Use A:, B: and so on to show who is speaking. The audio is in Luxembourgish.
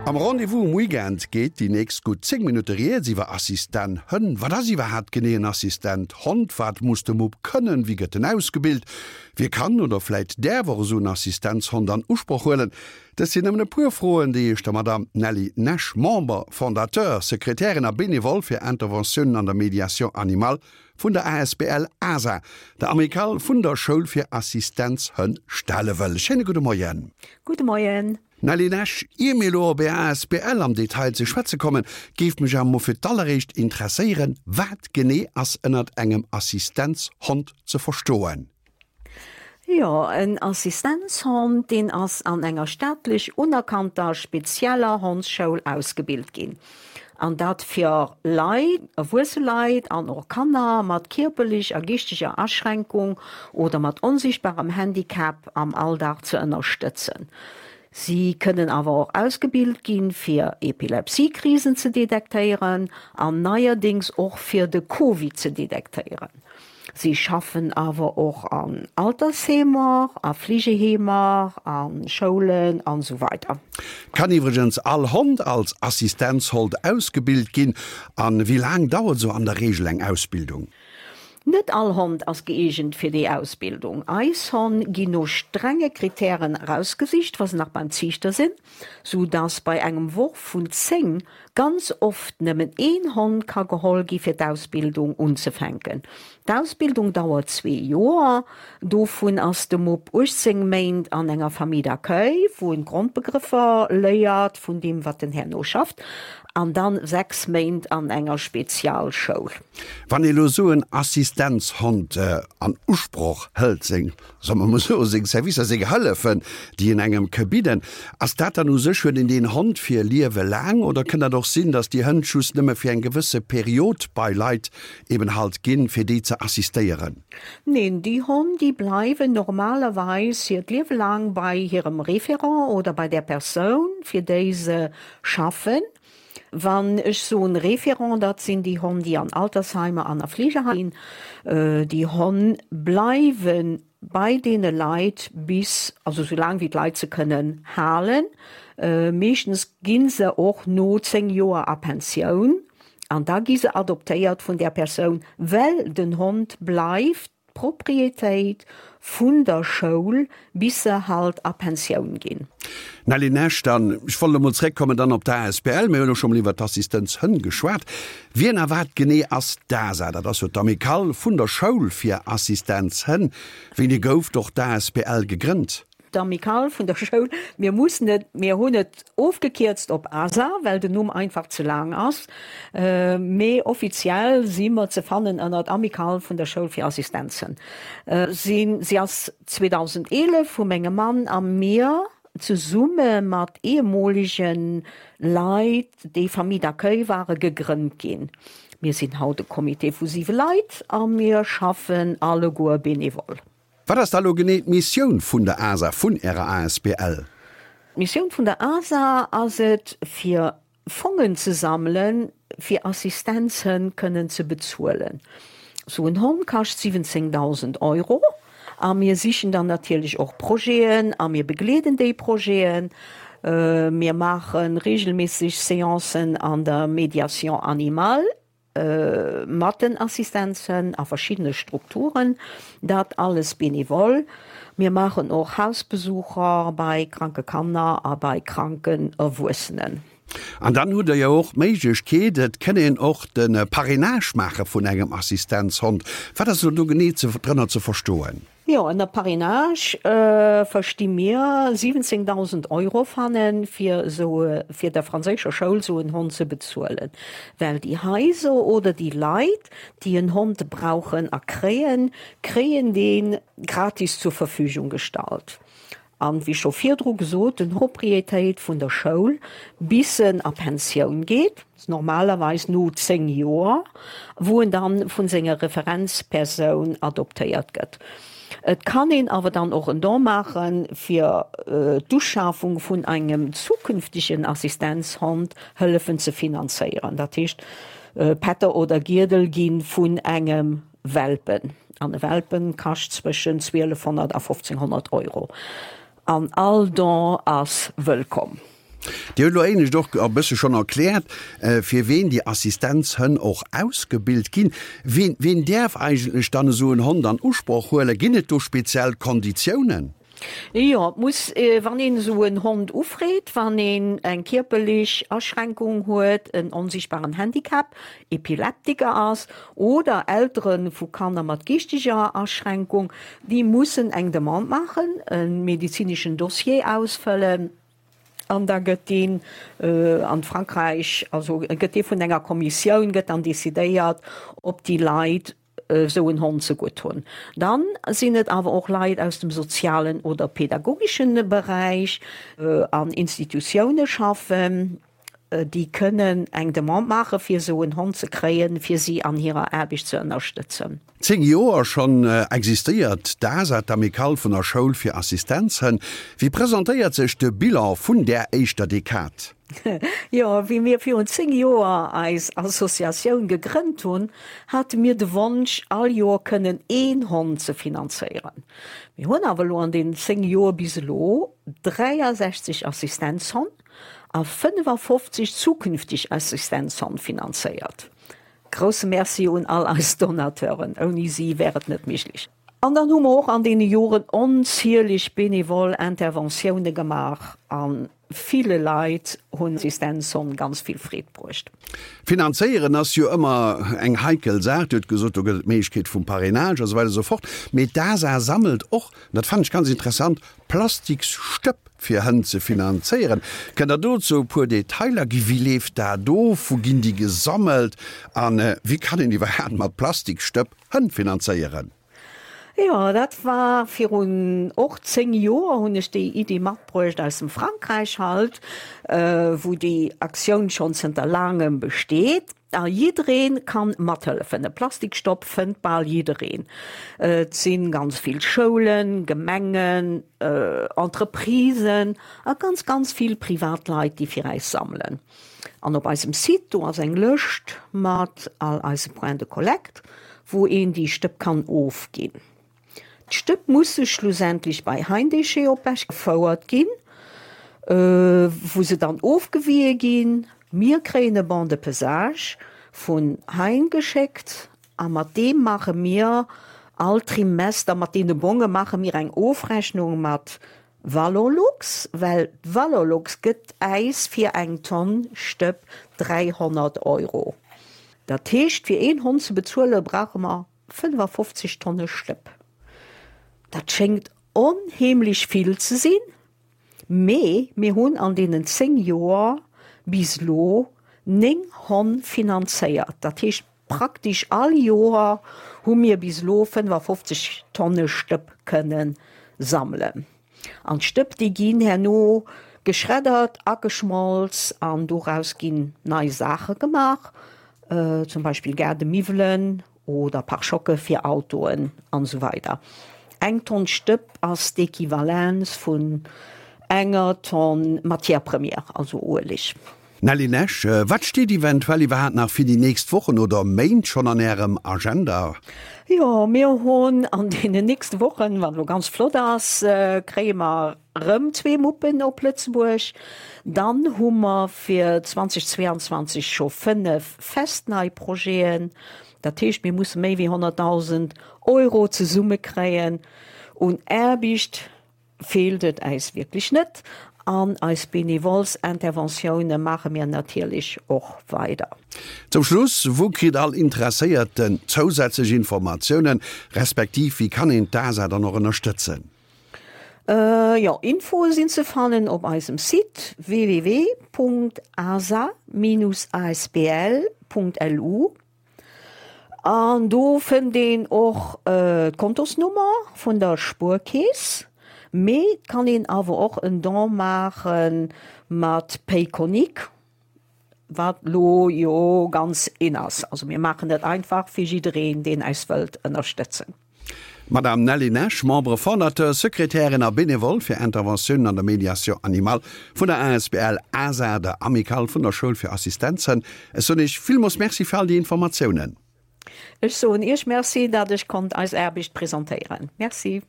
A: Am Rendez-vous um Weekend geet déi nächst gutt 10 Minutte rieds iwwer Assistent Hënn. Wat ass iwwerhaapt genee en Assistent Hond? Wat muss de Mupp kënnen? Wéi gëtt en ausgebilt? Wie kann oder vläit däerf och esou en Assistenzhond an Usproch huelen? Dëst sinn nëmmen e puer Froen, déi ech der Madamm Nelly Nash, Member, Fondateur, Sekretärin a Benevole fir Interventiounen an der Médiation animale vun der asbl asa, der Amicale vun der Schoul fir Assistenzhënn, stelle wëll. Schéine gudde Moien.
B: Gudde Moien.
A: Nelly Nash, ier mir elo op Är asbl am Detail ze schwätze kommen, géif mech awer mol fir d'alleréischt interesséieren, Wat genee ass ënnert engem Assistenzhond ze verstoen?
B: Jo, en Assistenzhond, deen ass an enger staatlech unerkannter spezieller Hondsschoul ausgebilt ginn. An dat fir Leit, erwuesse Leit an och Kanner mat kierperlech a geeschteger Aschränkung oder mat onsichtbarem Handicap am Alldag ze ënnerstëtzen. Si kënnen awer och ausgebilt ginn, fir Epilepsiekrisen ze detektéieren an neierdéngs och fir de Covid ze detektéieren. Si schaffen awer och an Altersheemer, a Fleegeheemer, a Schoulen an esou weider.
A: Kann iwwregens all Hond als Assistenzhold ausgebilt ginn? An wéi laang dauert esou an der Reegel eng Ausbildung?
B: Net all Hond ass gëeegent fir déi Ausbildung. Eis Honn ginn no strenge Kritären erausgesicht, wa se nach beim Ziichter sinn, sou dass bei engem Worf vun 10 ganz oft nëmmen een Hond ka geholl gi fir d'Ausbildung unzefänken. D'Ausbildung dauert zwee Joer, dovun ass de Mupp 18 Méint an enger Famille d'accueil, wou en d'Grondbegrëffer léiert vun deem wat en herno schafft, an dann 6 Méint an enger Spezialschoul.
A: Wann ee lo sou en Assistenzhond an Usproch hëlt, seng solle mer mol soen, seng Servicer, seng Hëllefen, déi en engem ke bidden, ass dat dann u sech, huet een deen Hond fir Liewe laang oder kënnt dat och sinn, datt déi Hënn just nëmme fir eng gewësse Period bei Leit eben halt ginn, fir déi ze assistéieren?
B: Neen, déi Honn, déi bleiwen normalerweis hiert Liewe laang bei hirem Référent oder bei där Persoun, fir déi se schaffen. Wann ech soen Référent, dat sinn déi Honn, déi an Altersheimer an a Fleegeheimer ginn. Déi Honn bleiwe bei deene Leit bis, also sou laang wéi d'Leit se kënnen halen. Meeschtens gi se och no 10 Joer a Pensioun an da gi se adoptéiert vun där Persoun, well den Hond bleift D'Propriétéit vun der Schoul, bis se halt a Pensioun ginn.
A: Nelly Nash, Dann, ech wollt emol zréckkommen dann op d'ASBL. Mir hunn elo scho mol iwwert d'Assistenzhënn geschwat. Wien a wat genee ass d'ASA? Dat ass jo d'Amicale vun der Schoul fir Assistenzhënn. Wéini gouf och d'ASBL gegrënnt?
B: D'Amicale vun der Schoul, mir mussen et, mir hunn et ofgekierzt op ASA, well den Numm einfach ze laang ass, mee offiziell si mer ze fannen ënnert Amicale vun der Schoul fir Assistenzen. Si ass 2011 vu mengem Mann a mir zesumme mat ehemolege Leit, déi Famille d'accueil ware, gegrënnt ginn. Mir sinn haut e Comité vu siwe Leit a mir schaffen alleguer bénévole.
A: Wat ass da lo genee d'Missioun vun der ASA, vun Ärer asbl?
B: D'Missioun vun der ASA ass et, fir Fongen ze sammelen, fir Assistenzhënn kënnen ze bezuelen. Sou en Hond kascht 17.000 Euro a mir sichen dann natierlech och Projeten a mir begleeden déi Projeten. Mir maache reegelméisseg Seancen an der Médiation animale. Mat den Assistenzen a verschiddene Strukturen, dat alles bénévole. Mir maachen och Hausbesucher bei kranke Kanner a bei kranken Erwuessenen.
A: An dann hutt Der jo och d'Méiglechkeet, et kënn een och de Parrainage maache vun engem Assistenzhond. Wat ass elo do genee drënner ze verstoen?
B: Jo, ënner Parrainage versti mir 17.000 Euro fannen, fir esou, fir der franséischer Schoul esou en Hond ze bezuelen. Well déi Haiser oder déi Leit, déi en Hond brauchen a kréien, kréien dee gratis zur Verfügung gestallt. An, wéi scho virdru gesot, den Propriétéit vun der Schoul, bis en a Pensioun geet, normalerweis no 10 Joer, wou en dann vun senger Referenzpersoun adoptéiert gëtt. Et kann een awer dann och en Don maachen, fir d'Uschafung vun engem zukünftegen Assistenzhond hëllefen ze finanzéieren. Dat heescht, Pätter oder Giedel gi vun engem Welpen, an e Welpen kascht zwëschen 1200 a 1500 Euro, an all Don ass wëllkomm.
A: Dir hutt elo éinescht och e bësse schonn erkläert, fir ween déi Assistenzhënn och ausgebilt ginn. Ween, ween däerf eigentlech dann esou en Hond an Usproch huelen? Ginn et do speziell Konditiounen?
B: Jo, et muss, wann een esou en Hond ufreet, wann een eng kierperlech Aschränkung huet, en onsichtbaren Handicap, Epileptiker ass oder Eltere vu Kanner mat geeschteger Aschränkung, déi mussen eng Demande maachen, e medezineschen Dossier ausfëllen an da gëtt deen an Frankräich, also gëtt dee vun enger Kommissioun, gëtt dann decidéiert, ob déi Leit esou en Hond ze gutt hunn. Dann sinn et awer och Leit aus dem sozialen oder pädagogeschen Beräich, an Institutioune schaffen, déi kënnen eng Demande maache fir esou en Hond ze kréien, fir si an hirer Aarbecht ze ënnerstëtzen.
A: 10 Joer schonn existéiert d'ASA, d'Amicale vun der Schoul fir Assistenzhënn. Wéi presentéiert sech de Bilan vun där éischter Dekad?
B: Jo, wéi mir virun 10 Joer eis Associatioun gegrënnt hunn, hate mir de Wonsch, all Joer kënnen een Hond ze finanzéieren. Mir hunn awer elo an deenen 10 Joer bis elo 63 Assistenzhonn a 55 zukünfteg Assistenzhonn finanzéiert. Grousse Merci un all eis Donateuren, ouni si wär et net méiglech. An dann hu mer och an deene Joren onzieleg benevol Interventioune gemaach a ville Leit hunn Assistenzhonn ganz vill Freed bruecht.
A: Finanzéieren ass jo ëmmer eng heikel Saach. Dir hutt gesot, do gëtt et d'Méiglechkeet vum Parrainage a sou weider a sou fort. Mee d'ASA sammelt och, an dat fannen ech ganz interessant, Plastiksstëpp fir Hënn ze finanzéieren. Kënnt Der dozou e puer Detailer ginn? Wéi leeft dat of? Wou ginn déi gesammelt? A wéi kann een iwwerhaapt mat Plastiksstëpp Hënn finanzéieren?
B: Jo, dat war virun och 10 Joer hunn ech déi Iddi matbruecht aus dem Frankräich halt, wou déi Aktioun schonn zënter laangem besteet. A jidderee kann mathëllefen. E Plastikstopp fënnt bal jiddereen. Et si ganz vill Schoulen, Gemengen, Entreprisen a ganz, ganz vill Privatleit, déi fir äis sammelen. An op eisem Site, do ass eng Lëscht mat all eise Points de collecte, wou een déi Stëpp kann ofginn. D'Stëpp musse schlussendlech bei Heindéchet op Esch gefouert ginn, wou se dann ofgewië ginn. Mir kréien e Bon de pesage vun Hein geschéckt a mat deem maache mir all Trimester, mat deene Bonge maache mir eng Ofrechnung mat Valorlux, well d'Valorlux gëtt äis fir eng Tonn Stëpp 300 Euro. Dat heescht, fir een Hond ze bezuele brauche mer 55 Tonne Stëpp. Dat schéngt onheemlech vill ze sinn, mee mir hunn an deenen 10 Joer bis elo 9 Honn finanzéiert. Dat heescht, praktesch all Joer hu mir bis elo 55 Tonne Stëpp kënne sammelen. An d'Stëpp, déi ginn herno geschreddert, ageschmolz an doraus ginn nei Saache gemaach, zum Beispill Gaardemiwwelen oder Pare-choque fir Autoen an esou weider. Eng Tonn Stëpp ass d'Equivalenz vun enger Tonn Matière première, also Ueleg.
A: Nelly Nash, Wat steet eventuell iwwerhaapt nach fir déi nächst Wochen oder Méint schonn an Ärem Agenda?
B: Jo, mir hunn an deenen nächste Wochen, wat elo ganz flott ass, kréie mer rëm zwee Muppen op Lëtzebuerg. Dann hu mer fir 2022 scho 5 fest nei Projeten. Dat heescht, mir musse méi wéi 100.000 Euro zesummekréien un Aarbecht. Feelt et äis wierklech net an eis Bénévolsinterventioune maache mir natierlech och weider.
A: Zum Schluss, Wou kritt all Interesséierten zousätzlech Informatiounen, respektiv wéi kann een d'ASA dann och ënnerstëtzen?
B: Jo, Infoe sinn ze fannen op eisem Site www.asa-asbl.lu. An do fënnt een och d'Kontosnummer vun der Spuerkeess, mee et kann een awer och en Don maache mat Payconiq, wat lo jo ganz in ass. Also mir maachen dat einfach fir jiddereen, deen eis wëllt ënnerstëtzen.
A: D'Madame Nelly Nash, Membre fondateur, Sekretärin a Bénévole fir Interventiounen an der Médiation animale vun der asbl ASA, der Amicale vun der Schoul fir Assistenzhënn. Ech soen Iech villmoos Merci fir all déi Informatiounen.
B: Ech soen Iech Merci, dat ech konnt eis Aarbecht presentéieren. Merci.